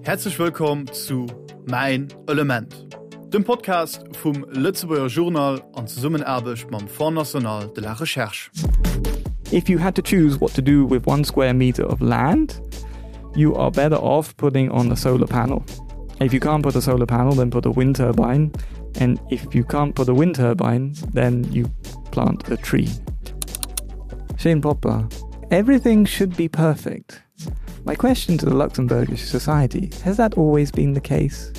Häerzlech wëllkomm zu Mäin Element, dem Podcast vum Lëtzebuerger Journal an Zesummenaarbecht mam Fonds National de la Recherche. If you had to choose what to do with one square meter of land, you are better off putting on a solar panel. If you can't put a solar panel, then put a wind turbine. And if you can't put a wind turbine, then you plant a tree. Shane Popper, everything should be perfect. My question to the Luxembourgish society, has that always been the case?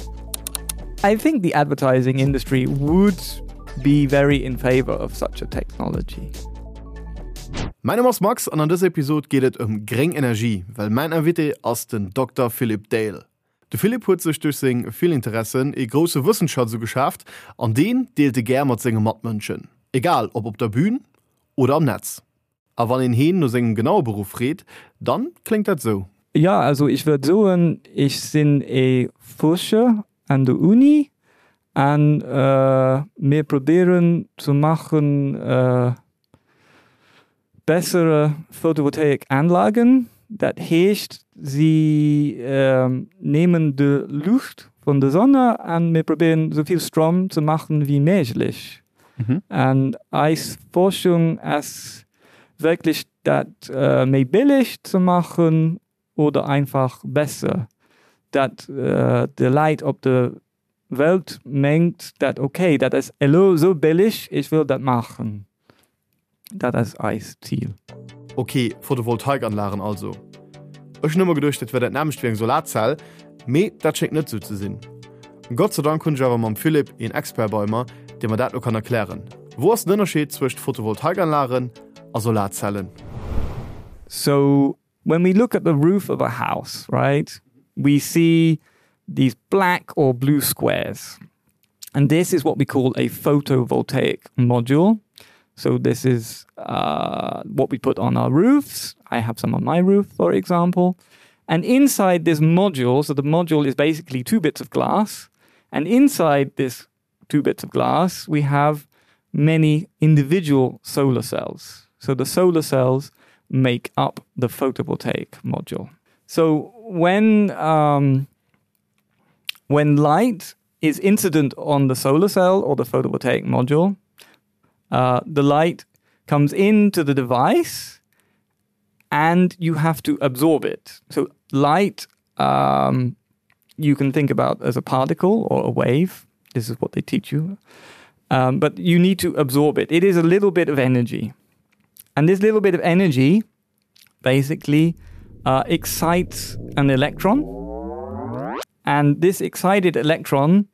I think the advertising industry would be very in favor of such a technology. Mäin Numm ass Max an an dëser Episod geet et ëm gréng Energie, well mäin Invité ass den Dokter Philippe Dale. De Philippe huet sech duerch seng vill Interessen ee grousse Wëssensschatz ugeschaaft an deen deelt e gär mat senge Matmënschen, egal ob op der Bühn oder am Netz. A wann een heen no sengem genaue Beruff freet, dann kléngt dat sou. Ja, also ech wërt soen, ech sinn ee Fuerscher an der Uni an mir probéieren ze maachen bessere Photovoltaikanlagen. Dat heescht, si nehmen de Luucht vun der Sonne an mir probéieren esou vill Strom ze maachen wéi méiglech. An eis Forschung ass wierklech dat méi billig ze maachen oder einfach besser, dat de Leit op der Welt mengt dat ok, dat ass elo esou billig, ech wëll dat maachen. Dat ass eist Zil. Ok, Photovoltaikanlagen also. Ech hunn ëmmer geduecht, dat wär dat nämmlecht wéi eng Solarzell, mee dat schéngt net sou ze sinn. Gott sei Dank hunn ech awer mam Philippe een Expert bei mer, dee mer dat lo kann erklären. Wou ass den Ënnerscheed zwëscht Photovoltaikanlagen a Solarzellen? So when we look at the roof of a house, right, we see these black or blue squares. And this is what we call a photovoltaic module. So this is uh, what we put on our roofs. I have some on my roof, for example. And inside this module, so the module is basically two bits of glass. And inside this two bits of glass, we have many individual solar cells. So the solar cells make up the photovoltaic module. So when um, when light is incident on the solar cell or the photovoltaic module, uh, the light comes into the device and you have to absorb it. So light um, you can think about as a particle or a wave. This is what they teach you. Um, but you need to absorb it. It is a little bit of energy. And this little bit of energy basically uh, excites an electron. And this excited electron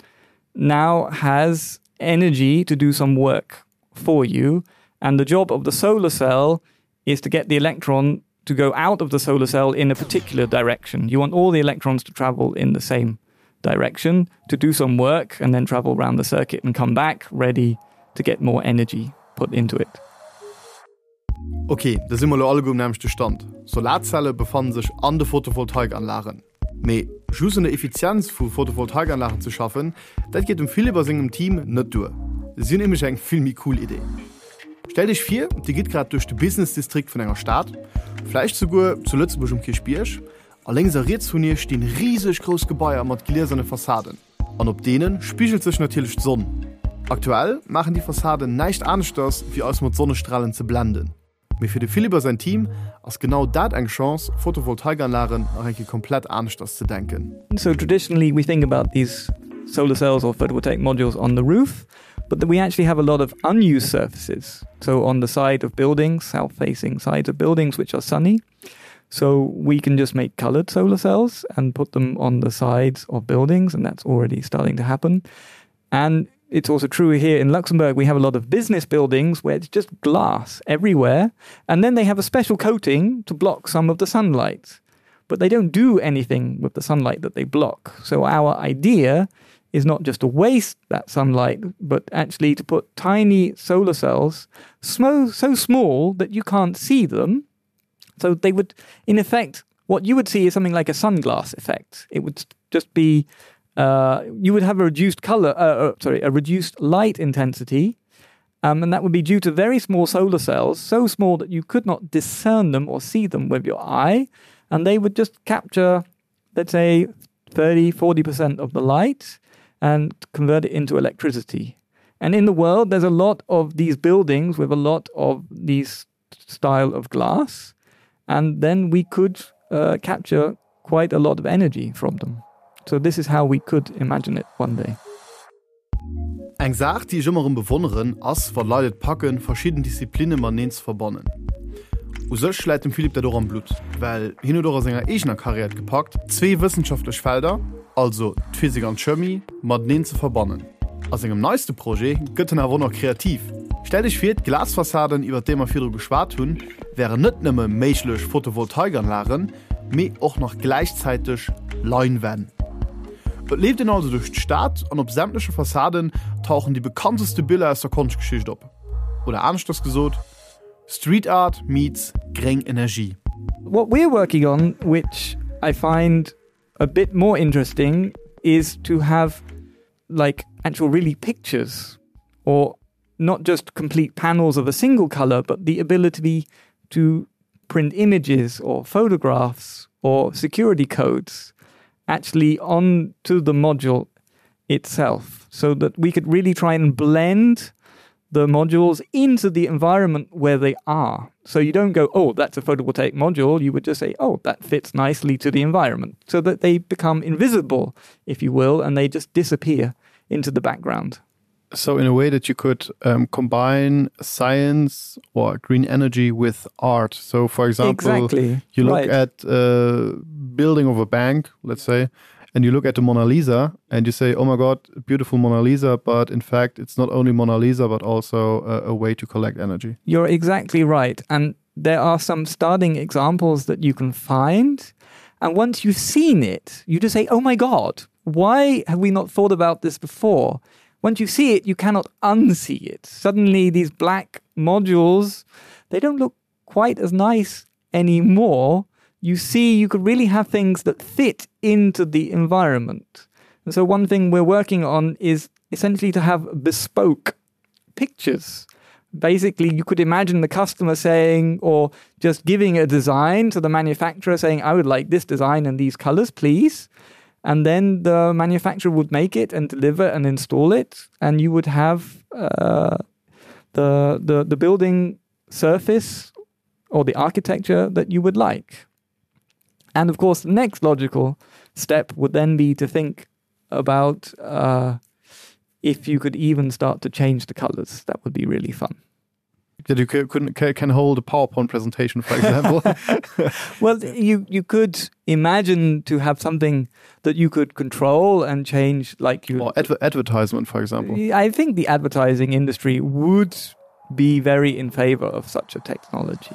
now has energy to do some work for you. And the job of the solar cell is to get the electron to go out of the solar cell in a particular direction. You want all the electrons to travel in the same direction to do some work and then travel around the circuit and come back ready to get more energy put into it. Ok, da si mer lo alleguer um nämmlechte Stand, Solarzelle befannen sech an de Photovoltaikanlagen. Mee just un der Effizienz vu Photovoltaikanlagen ze schaffen, dat geet dem Philippe a sengem Team net duer. Si hunn nämlech eng vill méi cool Idee. Stellt iech vir, dir gitt grad duerch de Business-Distrikt vun enger Stad, vläicht souguer zu Lëtzebuerg um Kierchbierg, a lénks a riets vun iech stinn riseg grouss Gebaier mat glieserne Fassaden. An op deene spigelt sech natierlech d'Sonn. Aktuell maachen déi Fassaden näischt aneschters, wéi eis mat Sonnestralen ze blenden. Mee fir de Philippe a säin Team ass genau dat eng Chance, Photovoltaikanlagen nach eng Kéier komplett aneschters ze denken. So traditionally we think about these solar cells or photovoltaic modules on the roof, but we actually have a lot of unused surfaces. So on the side of buildings, south-facing sides of buildings which are sunny. So we can just make colored solar cells and put them on the sides of buildings, and that's already starting to happen. And it's also true here in Luxembourg, we have a lot of business buildings where it's just glass everywhere. And then they have a special coating to block some of the sunlight. But they don't do anything with the sunlight that they block. So our idea is not just to waste that sunlight, but actually to put tiny solar cells so small that you can't see them. So they would, in effect, what you would see is something like a sunglass effect. It would just be uh, you would have a reduced color, uh, uh, sorry, a reduced light intensity. Um, and that would be due to very small solar cells, so small that you could not discern them or see them with your eye. And they would just capture, let's say, 30, 40% of the light and convert it into electricity. And in the world, there's a lot of these buildings with a lot of these style of glass. And then we could uh, capture quite a lot of energy from them. So this is how we could imagine it one day. Eng Saach, déi ech ëmmer erëm bewonneren, ass, wa Leit et packen, verschidden Disziplinne mateneen ze verbannen. U sech läit dem Philippe dat och am Blutt, well hien huet och a senger eegener Karriär et gepackt, zwee wëssenschaftlech Felder, also d'Physik an d'Chemie, mateneen ze verbannen. A sengem neiste Projet gëtt en awer och nach kreativ. Stellt iech vir, d'Glasfassaden, iwwer déi mer virdru geschwat hunn, wären net nëmme méiglech Photovoltaikanlagen, mee och nach gläichzäiteg Leinwänn. Et leeft een also duerch d'Stad an op sämtleche Fassaden tauchen déi bekannteste Biller aus der Konschtgeschicht op. Oder aneschters gesot, Street Art meets gréng Energie. What we're working on, which I find a bit more interesting, is to have like actual really pictures or not just complete panels of a single color, but the ability to print images or photographs or security codes actually onto the module itself so that we could really try and blend the modules into the environment where they are. So you don't go, oh, that's a photovoltaic module. You would just say, oh, that fits nicely to the environment so that they become invisible, if you will, and they just disappear into the background. So in a way that you could um, combine science or green energy with art. So for example, exactly. you look right. at uh, building of a bank, let's say, and you look at the Mona Lisa and you say, oh my God, beautiful Mona Lisa. But in fact, it's not only Mona Lisa, but also a, a way to collect energy. You're exactly right. And there are some starting examples that you can find. And once you've seen it, you just say, oh my God, why have we not thought about this before? Once you see it, you cannot unsee it. Suddenly, these black modules, they don't look quite as nice anymore. You see, you could really have things that fit into the environment. And so one thing we're working on is essentially to have bespoke pictures. Basically, you could imagine the customer saying, or just giving a design to the manufacturer saying, I would like this design and these colors, please. And then the manufacturer would make it and deliver and install it. And you would have uh, the, the, the building surface or the architecture that you would like. And of course, the next logical step would then be to think about uh, if you could even start to change the colors. That would be really fun. That you couldn't can hold a PowerPoint presentation, for example. well, you you could imagine to have something that you could control and change like you or adver advertisement, for example. I think the advertising industry would be very in favor of such a technology.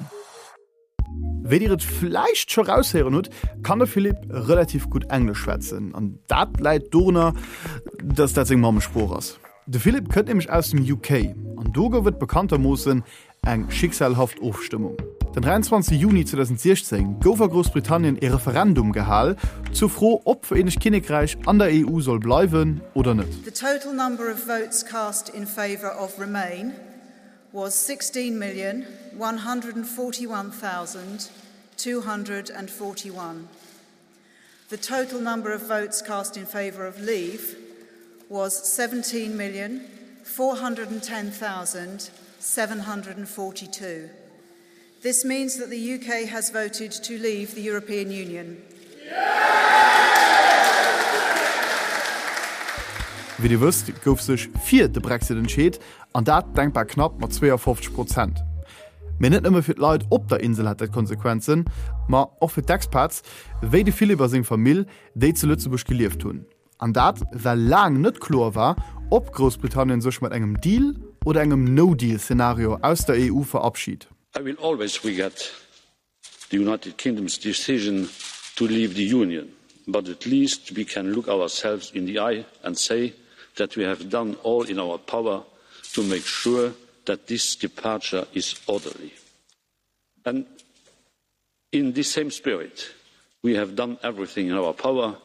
Wéi dir et vläicht scho raushéieren hutt, kann de Philippe relativ gutt Englesch schwätzen an dat läit dorunner, dass dat seng Mammesprooch ass. De Philippe kënnt nämlech aus dem UK an do gouf et bekanntermoossen eng schicksalhaft Ofstëmmung. Den 23 Juni 2016 gouf a Groussbritannien ee Referendum gehal zur Fro, ob d'Vereenegt Kinnekräich an der EU soll bleiwen oder net. The total number of votes cast in favour of Remain was 16,141,241. The total number of votes cast in favour of Leave was 17,410,742. This means that the UK has voted to leave the European Union. Wéi Dir wësst, gouf sech fir de Brexit entscheet, an dat denkbar knapp mat 52 Prozent. Mee net nëmme fir d'Leit op der Insel hat dat Konsequenzen, ma och fir d'Expats, wéi de Philippe a seng Famill, déi zu Lëtzebuerg gelieft hunn. An dat, well laang net kloer war, ob Groussbritannien sech mat engem Deal oder engem No-Deal-Szenario aus der EU verabschit. I will always regret the United Kingdom's decision to leave the Union, but at least we can look ourselves in the eye and say that we have done all in our power to make sure that this departure is orderly. And in this same spirit, we have done everything in our power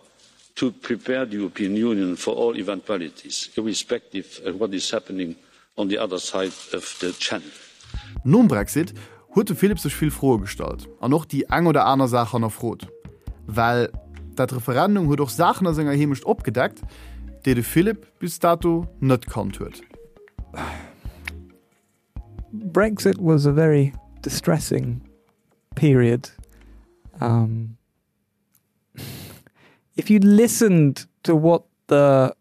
to prepare the European Union for all eventualities, irrespective of what is happening on the other side of the channel. Nom Brexit huet de Philippe sech vill Froe gestallt an och déi eng oder aner Saach hannerfrot. Well. Dat Referendum huet och Saachen a senger Heemecht opgedeckt, déi de Philippe bis dato net kannt huet. Brexit was a very distressing period. Um, if you listened to what the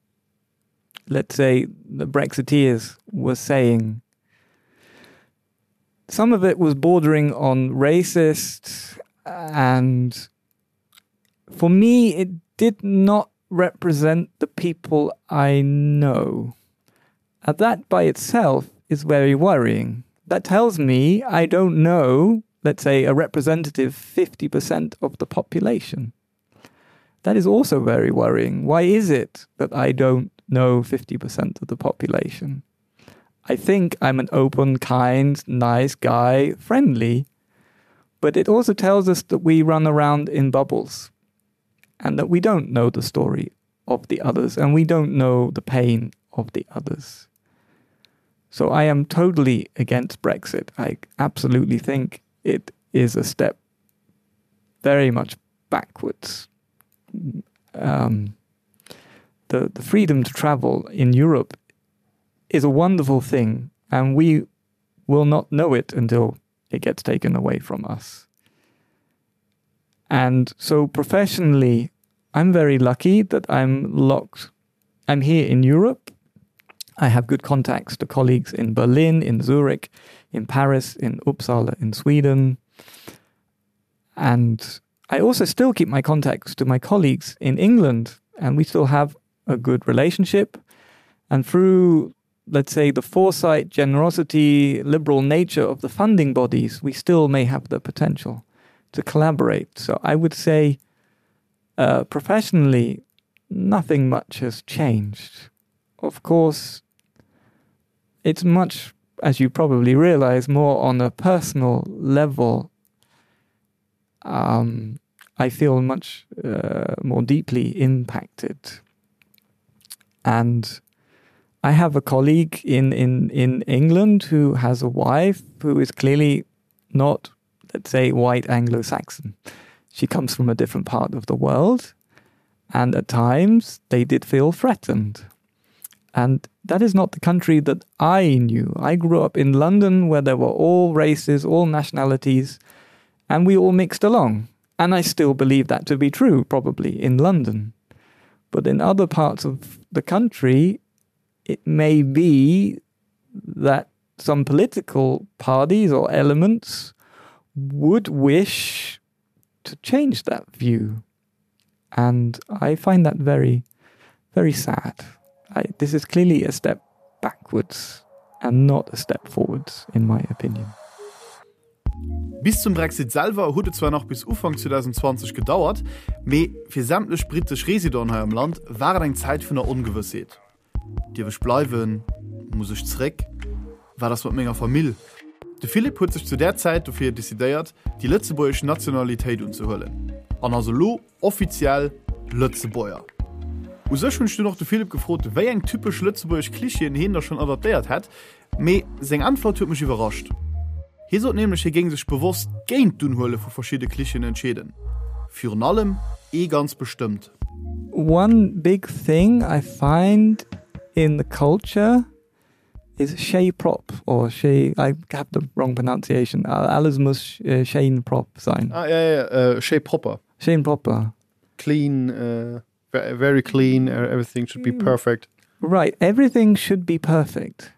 let's say the Brexiteers were saying, some of it was bordering on racist and for me it did not represent the people I know. And that by itself is very worrying. That tells me I don't know, let's say a representative 50% of the population. That is also very worrying. Why is it that I don't know 50% of the population? I think I'm an open, kind, nice guy, friendly, but it also tells us that we run around in bubbles and that we don't know the story of the others and we don't know the pain of the others. So I am totally against Brexit. I absolutely think it is a step very much backwards. Um, the, the freedom to travel in Europe is a wonderful thing, and we will not know it until it gets taken away from us. And so professionally, I'm very lucky that I'm locked. I'm here in Europe. I have good contacts to colleagues in Berlin, in Zurich, in Paris, in Uppsala, in Sweden. And I also still keep my contacts to my colleagues in England, and we still have a good relationship. And through, let's say, the foresight, generosity, liberal nature of the funding bodies, we still may have the potential to collaborate. So I would say uh, professionally, nothing much has changed. Of course, it's much, as you probably realize, more on a personal level. Um, I feel much uh, more deeply impacted. And I have a colleague in, in, in England who has a wife who is clearly not, let's say, white Anglo-Saxon. She comes from a different part of the world, and at times they did feel threatened. And that is not the country that I knew. I grew up in London where there were all races, all nationalities, and we all mixed along. And I still believe that to be true, probably in London. But in other parts of the country, it may be that some political parties or elements would wish to change that view. And I find that very, very sad. I, this is clearly a step backwards and not a step forwards, in my opinion. Bis zum Brexit selwer huet et zwar nach bis Ufank 2020 gedauert, mee fir sämtlech brittesch Residenten hei am Land war et eng Zäit vun der Ongewëssheet. Dierf ech bleiwen? Muss ech zeréck? Wat ass mat menger Famill? De Philippe huet sech zu där Zäit dofir decidéiert, déi lëtzebuergesch Nationalitéit unzehuelen an ass elo offiziell Lëtzebuerger. U sech hunn ech dunn och de Philippe gefrot, wéi eng typesch lëtzebuergesch Klischeeën hien da schonn adaptéiert hätt, mee seng Äntwert huet mech iwwerrascht. Hie sot nämlech, hie géing sech bewosst géint d'Unhuele vu verschidde Klischeeën entscheeden, virun allem ee ganz bestëmmt. One big thing I find in the culture is Shay Prop or Shay I have the wrong pronunciation. Alles muss äh, Shane Prop sein. Ah, ja, ja, äh, Shay Proper. Shane Proper. Clean, uh, very clean, everything should be mm. perfect. Right, everything should be perfect.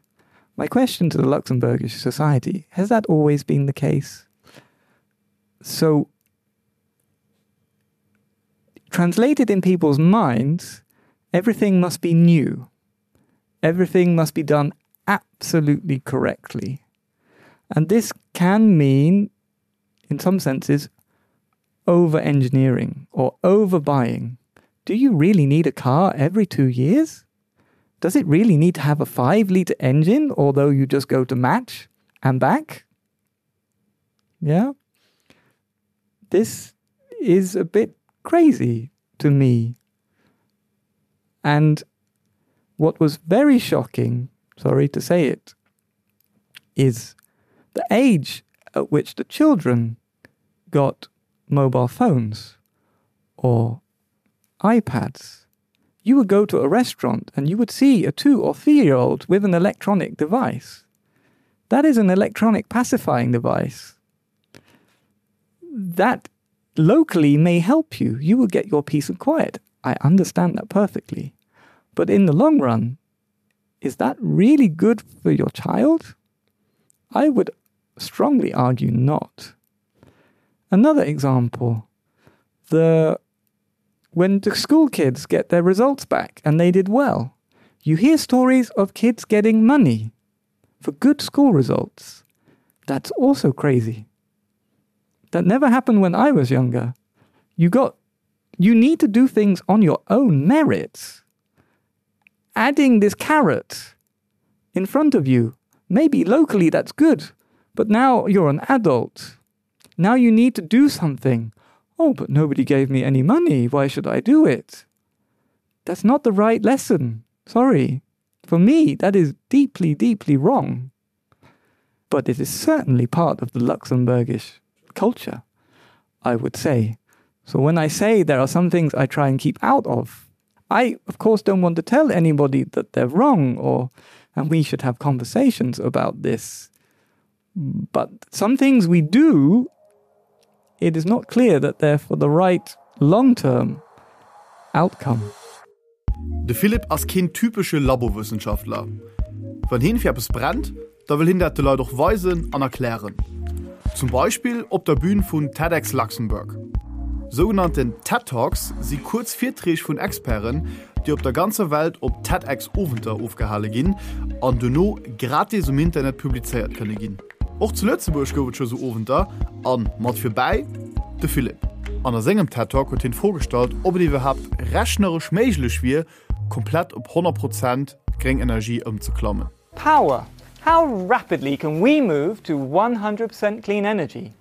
My question to the Luxembourgish society, has that always been the case? So translated in people's minds, everything must be new. Everything must be done absolutely correctly. And this can mean, in some senses, over-engineering or overbuying. Do you really need a car every two years? Does it really need to have a five-liter engine, although you just go to match and back? Yeah. This is a bit crazy to me. And what was very shocking, sorry to say it, is the age at which the children got mobile phones or iPads. You would go to a restaurant and you would see a 2 or 3-year-old with an electronic device. That is an electronic pacifying device. That locally may help you. You will get your peace and quiet. I understand that perfectly. But in the long run, is that really good for your child? I would strongly argue not. Another example, the when the school kids get their results back and they did well, you hear stories of kids getting money for good school results. That's also crazy. That never happened when I was younger. You got you need to do things on your own merits. Adding this carrot in front of you, maybe locally that's good, but now you're an adult. Now you need to do something. Oh, but nobody gave me any money. Why should I do it? That's not the right lesson. Sorry. For me, that is deeply, deeply wrong. But it is certainly part of the Luxembourgish culture, I would say. So when I say there are some things I try and keep out of, I, of course, don't want to tell anybody that they're wrong or and we should have conversations about this. But some things we do, it is not clear that they're for the right long-term outcome. De Philippe ass keen typesche Labowëssenschaftler. Wann hien fir eppes brennt, da wëll hien dat de Leit och weisen an erklären. Zum Beispill op der Bün vun TEDx Luxembourg. Sougenannten TED Talks si kuerz Virträg vun Experten, déi op der ganzer Welt op TEDx-Owenter ofgehale ginn an dono gratis um Internet publizéiert kënne ginn. Och zu Lëtzebuerg gouf et scho sou Owenter an mat virbäi de Philippe. An a sengem TED Talk huet hien d'Fro gestallt, ob et iwwerhaapt rechneresch méiglech wier, komplett op 100 Prozent gréng Energie ëmzeklammen. Power, How rapidly can we move to 100% clean energy?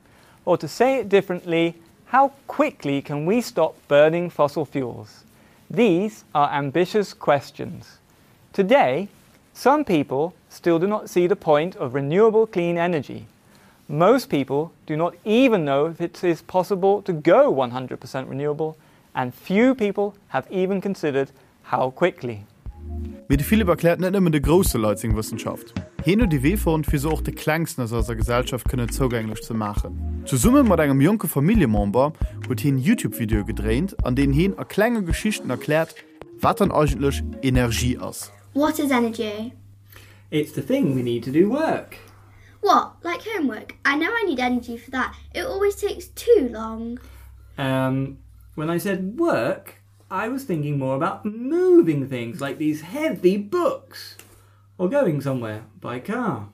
Or to say it differently, how quickly can we stop burning fossil fuels? These are ambitious questions. Today, some people still do not see the point of renewable clean energy. Most people do not even know if it is possible to go 100% renewable, and few people have even considered how quickly. Mee de Philippe erkläert net nëmmen de grousse Leit seng Wëssenschaft. Hien huet ee Wee fonnt, fir se och de Klengsten aus eiser Gesellschaft kënnen zougänglech ze maachen. Zesumme mat engem jonke Familljemember huet hien Youtube-Videoe gedréint, an deenen hien a klenge Geschichten erkläert, wat dann eigentlech Energie ass. What is energy? It's the thing we need to do work. What, like homework? I know I need energy for that. It always takes too long. Um, when I said work, I was thinking more about moving things like these heavy books or going somewhere by car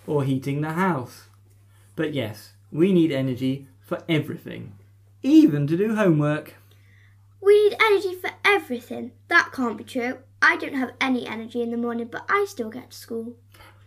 or heating the house. But yes, we need energy for everything, even to do homework. We need energy for everything. That can't be true. I don't have any energy in the morning, but I still get to school.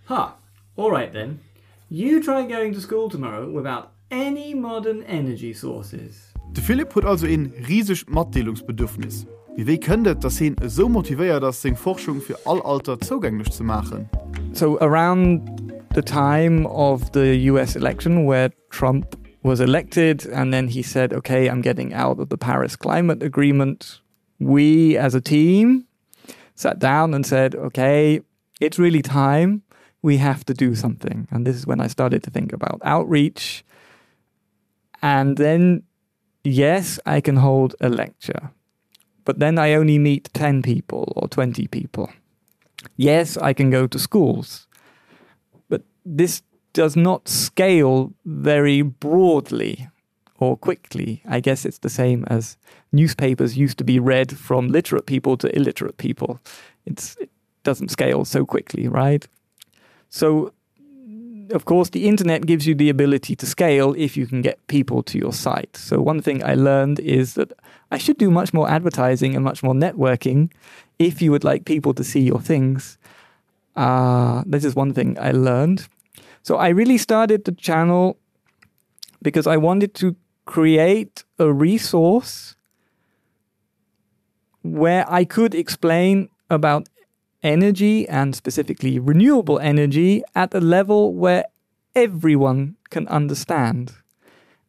Ha! All right then. You try going to school tomorrow without any modern energy sources. De Philippe huet also een risegt Matdeelungsbedürfnis. Mee wéi kënnt et, dass heen esou motivéiert ass, seng Forschung fir all Alter zougänglech ze maachen? So around the time of the US election where Trump was elected and then he said, okay, I'm getting out of the Paris Climate Agreement. We as a team sat down and said, okay, it's really time we have to do something. And this is when I started to think about outreach. And then, yes, I can hold a lecture, but then I only meet 10 people or 20 people. Yes, I can go to schools, but this does not scale very broadly or quickly. I guess it's the same as newspapers used to be read from literate people to illiterate people. It's, it doesn't scale so quickly, right? So of course, the internet gives you the ability to scale if you can get people to your site. So one thing I learned is that I should do much more advertising and much more networking if you would like people to see your things. Uh, this is one thing I learned. So I really started the channel because I wanted to create a resource where I could explain about energy and specifically renewable energy at a level where everyone can understand.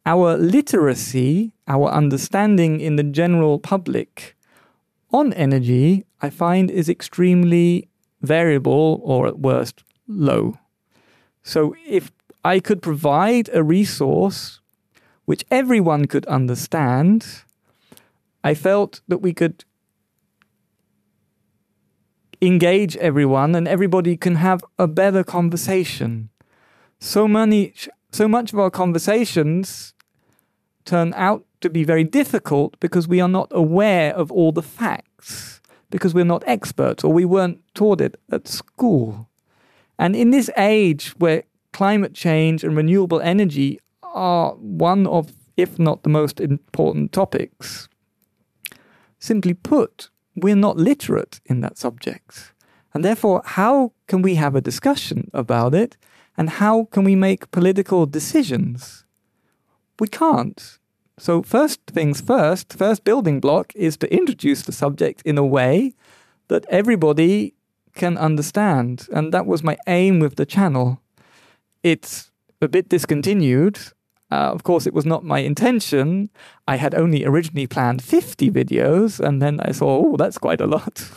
Our literacy, our understanding in the general public on energy, I find is extremely variable or at worst low. So if I could provide a resource which everyone could understand, I felt that we could engage everyone and everybody can have a better conversation. So many so much of our conversations turn out to be very difficult because we are not aware of all the facts, because we're not experts or we weren't taught it at school. And in this age where climate change and renewable energy are one of, if not the most important topics, simply put, we're not literate in that subject. And therefore, how can we have a discussion about it? And how can we make political decisions? We can't. So first things first, first building block is to introduce the subject in a way that everybody can understand. And that was my aim with the channel. It's a bit discontinued. Uh, of course, it was not my intention. I had only originally planned 50 videos, and then I saw, oh, that's quite a lot.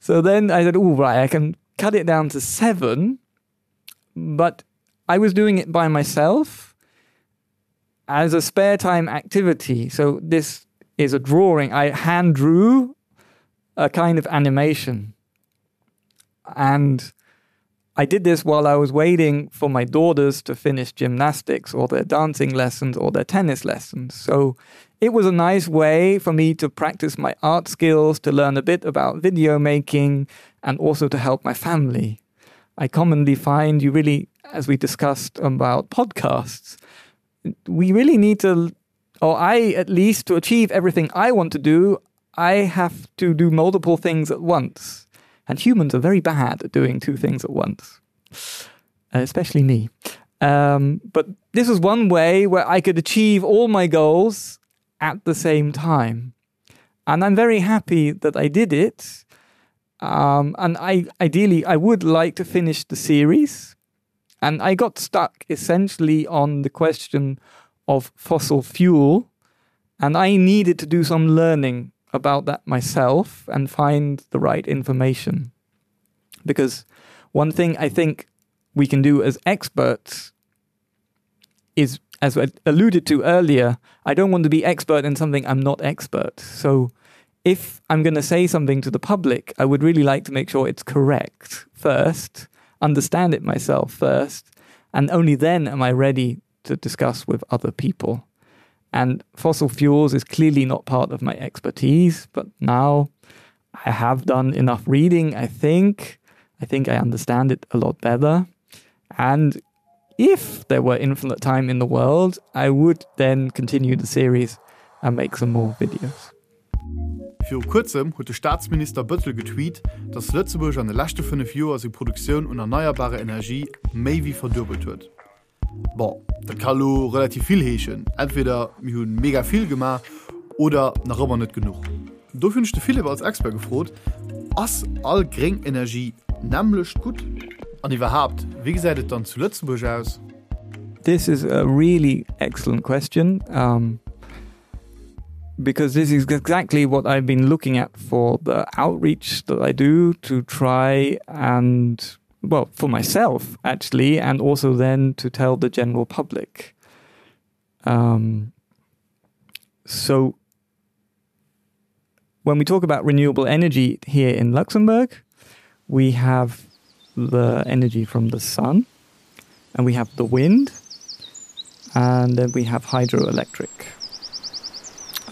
so then I said, oh, right, I can cut it down to seven. But I was doing it by myself as a spare time activity. So this is a drawing. I hand drew a kind of animation. And I did this while I was waiting for my daughters to finish gymnastics or their dancing lessons or their tennis lessons. So it was a nice way for me to practice my art skills, to learn a bit about video making, and also to help my family. I commonly find you really, as we discussed about podcasts, we really need to, or I at least, to achieve everything I want to do, I have to do multiple things at once. And humans are very bad at doing two things at once, especially me. Um, but this was one way where I could achieve all my goals at the same time. And I'm very happy that I did it. Um, and I ideally I would like to finish the series. And I got stuck essentially on the question of fossil fuel. And I needed to do some learning about that myself and find the right information. Because one thing I think we can do as experts is, as I alluded to earlier, I don't want to be expert in something I'm not expert. So if I'm going to say something to the public, I would really like to make sure it's correct first, understand it myself first, and only then am I ready to discuss with other people. And fossil fuels is clearly not part of my expertise, but now I have done enough reading, I think. I think I understand it a lot better. And if there were infinite time in the world, I would then continue the series and make some more videos. Viru kuerzem huet de Staatsminister Bëttel getweet, datt Lëtzebuerg an de leschte 5 Joer seng Produktioun un erneierbarer Energie méi wéi verduebelt huet. Bon, dat ka lo relativ vill heeschen, entweder mir hu mega vill gemaach oder nach ëmmer net genuch. Dofir hunn ech de Philippe als Expert gefrot, Ass all gréng Energie nämmlecht gutt? An iwwerhaapt, wéi gesäit et dann zu Lëtzebuerg aus? This is a really excellent question um, because this is exactly what I've been looking at for the outreach that I do to try and well for myself actually and also then to tell the general public um, so when we talk about renewable energy here in Luxembourg we have the energy from the sun and we have the wind and then we have hydroelectric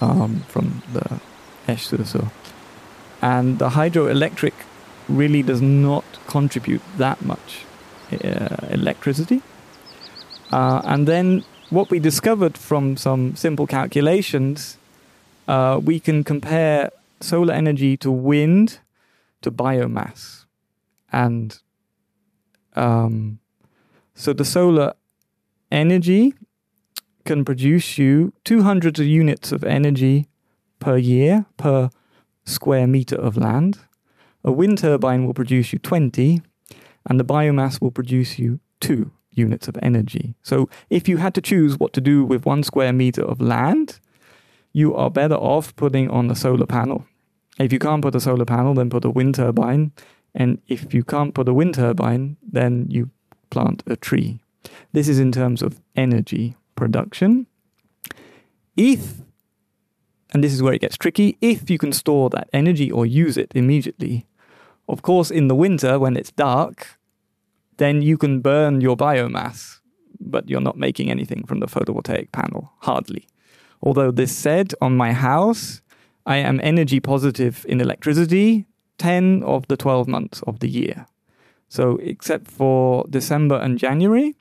um, from the Esch-sur-Sur. And the hydroelectric really does not contribute that much uh, electricity. Uh, and then what we discovered from some simple calculations, uh, we can compare solar energy to wind to biomass. And um, so the solar energy can produce you 200 units of energy per year per square meter of land. A wind turbine will produce you 20 and the biomass will produce you 2 units of energy. So if you had to choose what to do with one square meter of land, you are better off putting on a solar panel. If you can't put a solar panel, then put a wind turbine. And if you can't put a wind turbine, then you plant a tree. This is in terms of energy production. If, and this is where it gets tricky, if you can store that energy or use it immediately, of course, in the winter when it's dark, then you can burn your biomass, but you're not making anything from the photovoltaic panel, hardly. Although this said, on my house, I am energy positive in electricity 10 of the 12 months of the year. So except for December and January,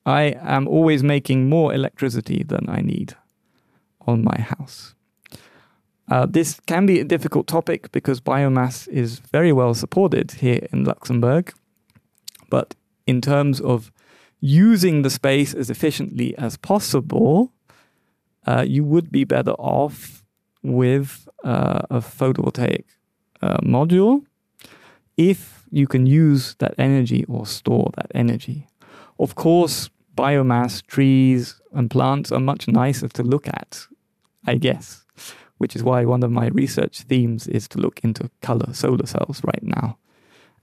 I am always making more electricity than I need on my house. Uh, this can be a difficult topic because biomass is very well supported here in Luxembourg. But in terms of using the space as efficiently as possible, uh, you would be better off with uh, a photovoltaic uh, module if you can use that energy or store that energy. Of course, biomass, trees, and plants are much nicer to look at, I guess, which is why one of my research themes is to look into color solar cells right now.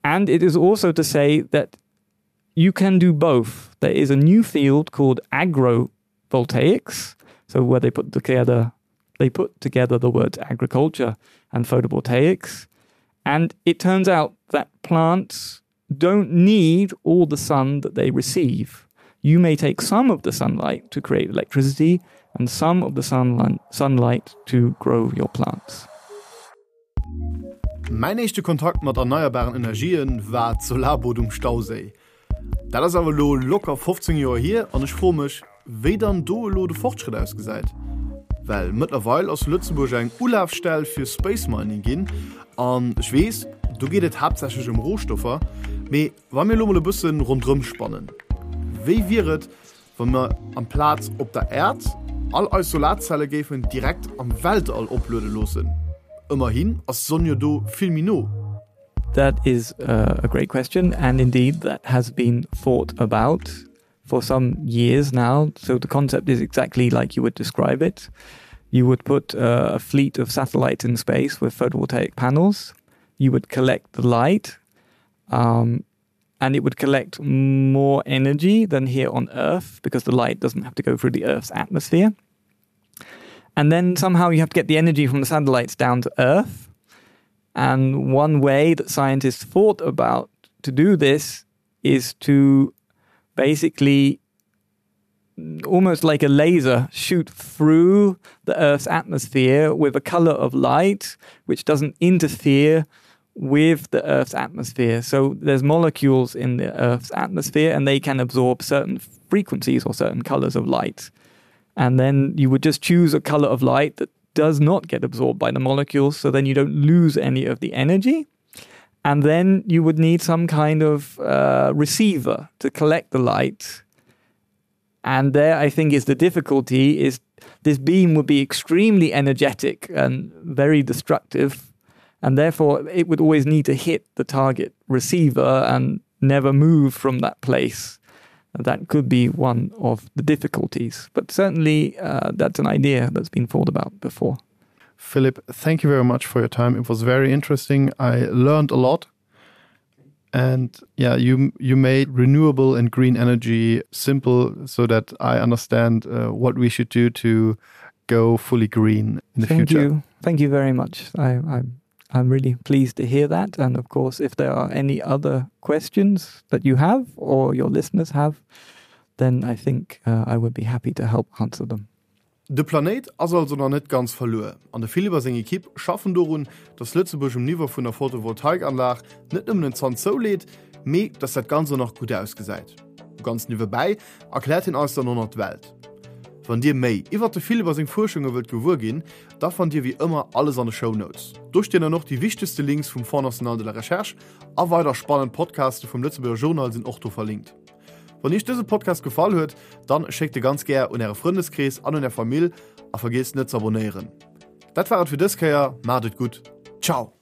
And it is also to say that you can do both. There is a new field called agrovoltaics, so where they put together they put together the words agriculture and photovoltaics. And it turns out that plants don't need all the sun that they receive. You may take some of the sunlight to create electricity and some of the sunlight, sunlight to grow your plants. Mäin éischte Kontakt mat erneierbaren Energien war d'Solarboot um Stauséi. Dat ass awer elo locker 15 Joer hier an ech froe mech, wéi dann do elo de Fortschrëtt ausgesäit. Well mëttlerweil ass Lëtzebuerg eng Ulafstell fir Space Mining ginn an ech weess, do geet et haaptsächlech ëm Rohstoffer, mee wa mir elo mol e bësse ronderëm spannen, wéi wier et, wa mer amplaz op der Äerd all eis Solarzelle géifen direkt am Weltall opluede loossen? Ëmmerhin ass d'Sonn jo do vill méi no. That is a great question and indeed that has been thought about for some years now. So the concept is exactly like you would describe it. You would put uh, a fleet of satellites in space with photovoltaic panels. You would collect the light um, and it would collect more energy than here on Earth because the light doesn't have to go through the Earth's atmosphere. And then somehow you have to get the energy from the satellites down to Earth. And one way that scientists thought about to do this is to basically almost like a laser shoot through the Earth's atmosphere with a color of light which doesn't interfere with the Earth's atmosphere. So there's molecules in the Earth's atmosphere and they can absorb certain frequencies or certain colors of light. And then you would just choose a color of light that does not get absorbed by the molecules, so then you don't lose any of the energy. And then you would need some kind of uh, receiver to collect the light. And there, I think, is the difficulty is this beam would be extremely energetic and very destructive. And therefore, it would always need to hit the target receiver and never move from that place. That could be one of the difficulties. But certainly, uh, that's an idea that's been thought about before. Philip, thank you very much for your time. It was very interesting. I learned a lot. And yeah, you you made renewable and green energy simple so that I understand uh, what we should do to go fully green in the thank future. You. Thank you very much. I, I'm, I'm really pleased to hear that. And of course, if there are any other questions that you have or your listeners have, then I think uh, I would be happy to help answer them. De Planéit ass also nach net ganz verluer an de Philippe a seng Ekipp schaffen dorun, dass Lëtzebuerg um Niveau vun der Photovoltaikanlag net nëmmen en Zant zouleet, mee dass dat Ganzt och nach gutt ausgesäit. Ganz niewebäi erkläert hien eis dann och nach d'Welt. Wann dir méi iwwert de Philippe a seng Fuerschunge wëllt gewuer ginn, da fannt dir wéi ëmmer alles an de Shownotes. Do stinn dann och déi wichtegste Links vum Fonds National de la Recherche a weider spannend Podcaste vum Lëtzebuerger Journal sinn och do verlinkt. Wann iech dëse Podcast gefall huet, dann schéckt e ganz gär un äre Frëndeskrees an un är Famill a vergiesst net z'abonéieren. Dat war et fir dës Kéier, maacht et gutt, ciao!